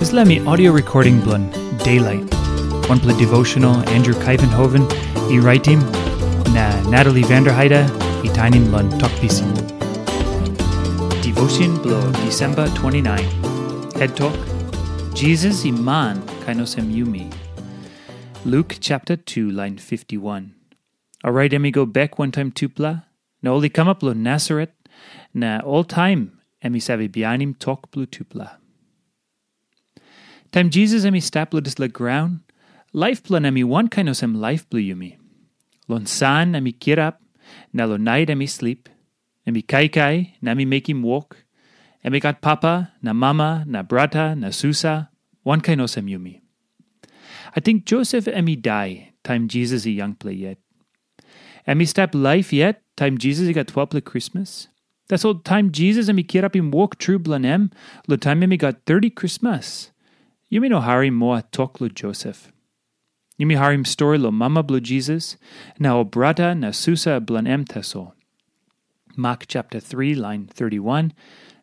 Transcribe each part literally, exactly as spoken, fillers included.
Dispela mi audio recording bilong Daylight, wanpela devotional Andrew Kaivenhoven i raitim, na Natalie Vanderheide i tainim long Tok Pisin. Devotion bilong December twenty-nine. Head Talk, Jesus i man kain olsem yumi. Luke chapter two, line fifty-one. Orait em i go bek wantaim tupela, na ol i kamap long Nasaret, na oltaim em i save bihainim tok bilong tupela. Taim Jisas em i stap long dispela graun, laip bilong em i wankain olsem laip bilong yumi. Long san em i kirap, na long nait em i slip. Em i kaikai, na em i mekim wok. Em i gat papa, na mama, na brata, na susa, wankain olsem yumi. Ating Josef em i dai taim Jisas i yangpela yet. Em i stap laip yet taim Jisas i gat twelpela krismas. Tasol taim Jisas em i kirapim wok tru bilong em, long taim em i gat thirty krismas, yumi no harim moa tok long Josef. Yumi harim stori long mama bilong Jisas, na ol brata na susa bilong em tasol. Mak chapter three, line thirty-one,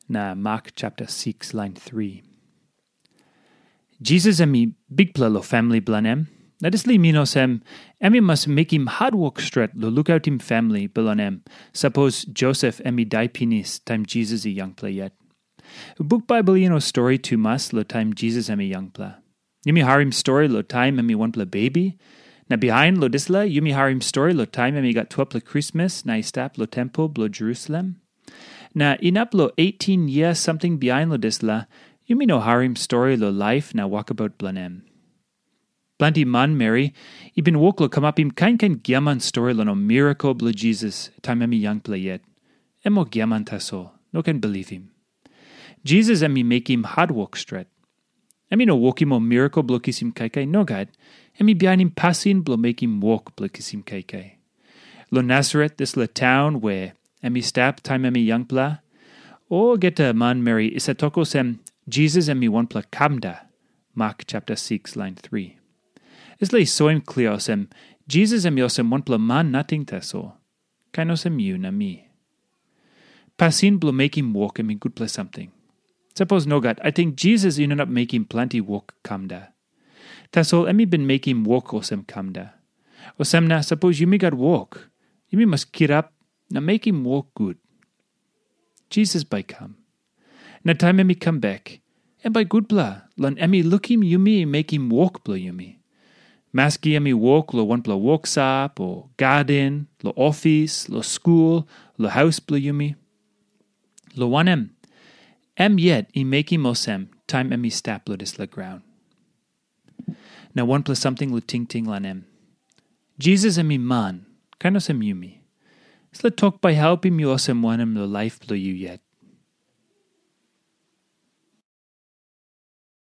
na Mak chapter six, line three. Jisas em i bikpela long famili bilong em, na dispela i min olsem, em i mas mekim hatwok stret long lukautim famili bilong em, sapos Josef em i dai pinis taim Jisas i yangpela yet. Buk Baibel i no stori tumas long taim Jisas em i yangpela. Yumi harim stori long taim em i wanpela bebi, na bihain long dispela yumi harim stori long taim em i gat twelpela krismas na i stap long tempel bilong Jerusalem. Na inap long eighteen yia samting bihain long dispela, yumi no harim stori long laip na wokabaut bilong em. Planti manmeri i bin wok long kamapim kain kain giaman stori long ol mirakel bilong Jisas taim em i yangpela yet. Em ol giaman tasol, no ken bilipim. Jisas em i mekim hatwok stret. Em i no wokim ol mirakel bilong kisim kaikai, nogat. Em i bihainim pasin bilong mekim wok bilong kisim kaikai. Long Nasaret, dispela taun where em i stap taim em i yangpela, olgeta manmeri i save tok olsem, Jisas em i wanpela kamda, Mak chapter six, line three. Dispela i soim klia olsem, Jisas em i olsem wanpela man nating tasol, kain olsem yu na mi. Pasin bilong mekim wok em i gutpela samting. Sapos nogat, ating Jisas i no inap mekim planti wok kamda. Tasol em i bin mekim wok olsem kamda. Olsem na, sapos yumi gat wok, yumi mas kirap na mekim wok gut. Jisas bai i kam. Na taim em i kam bek, em bai gutpela, long em i lukim yumi mekim wok bilong yumi. Maski em i wok long wanpela woksop o gaden, long ofis, long skul, long haus bilong yumi. Long wanem, em yet i mekim olsem taim em i stap long dispela graun. Na wanpela samting long tingting long em. Jisas em i man, kain olsem yumi. Dispela tok bai helpim yu olsem wanem long laip bilong yu yet?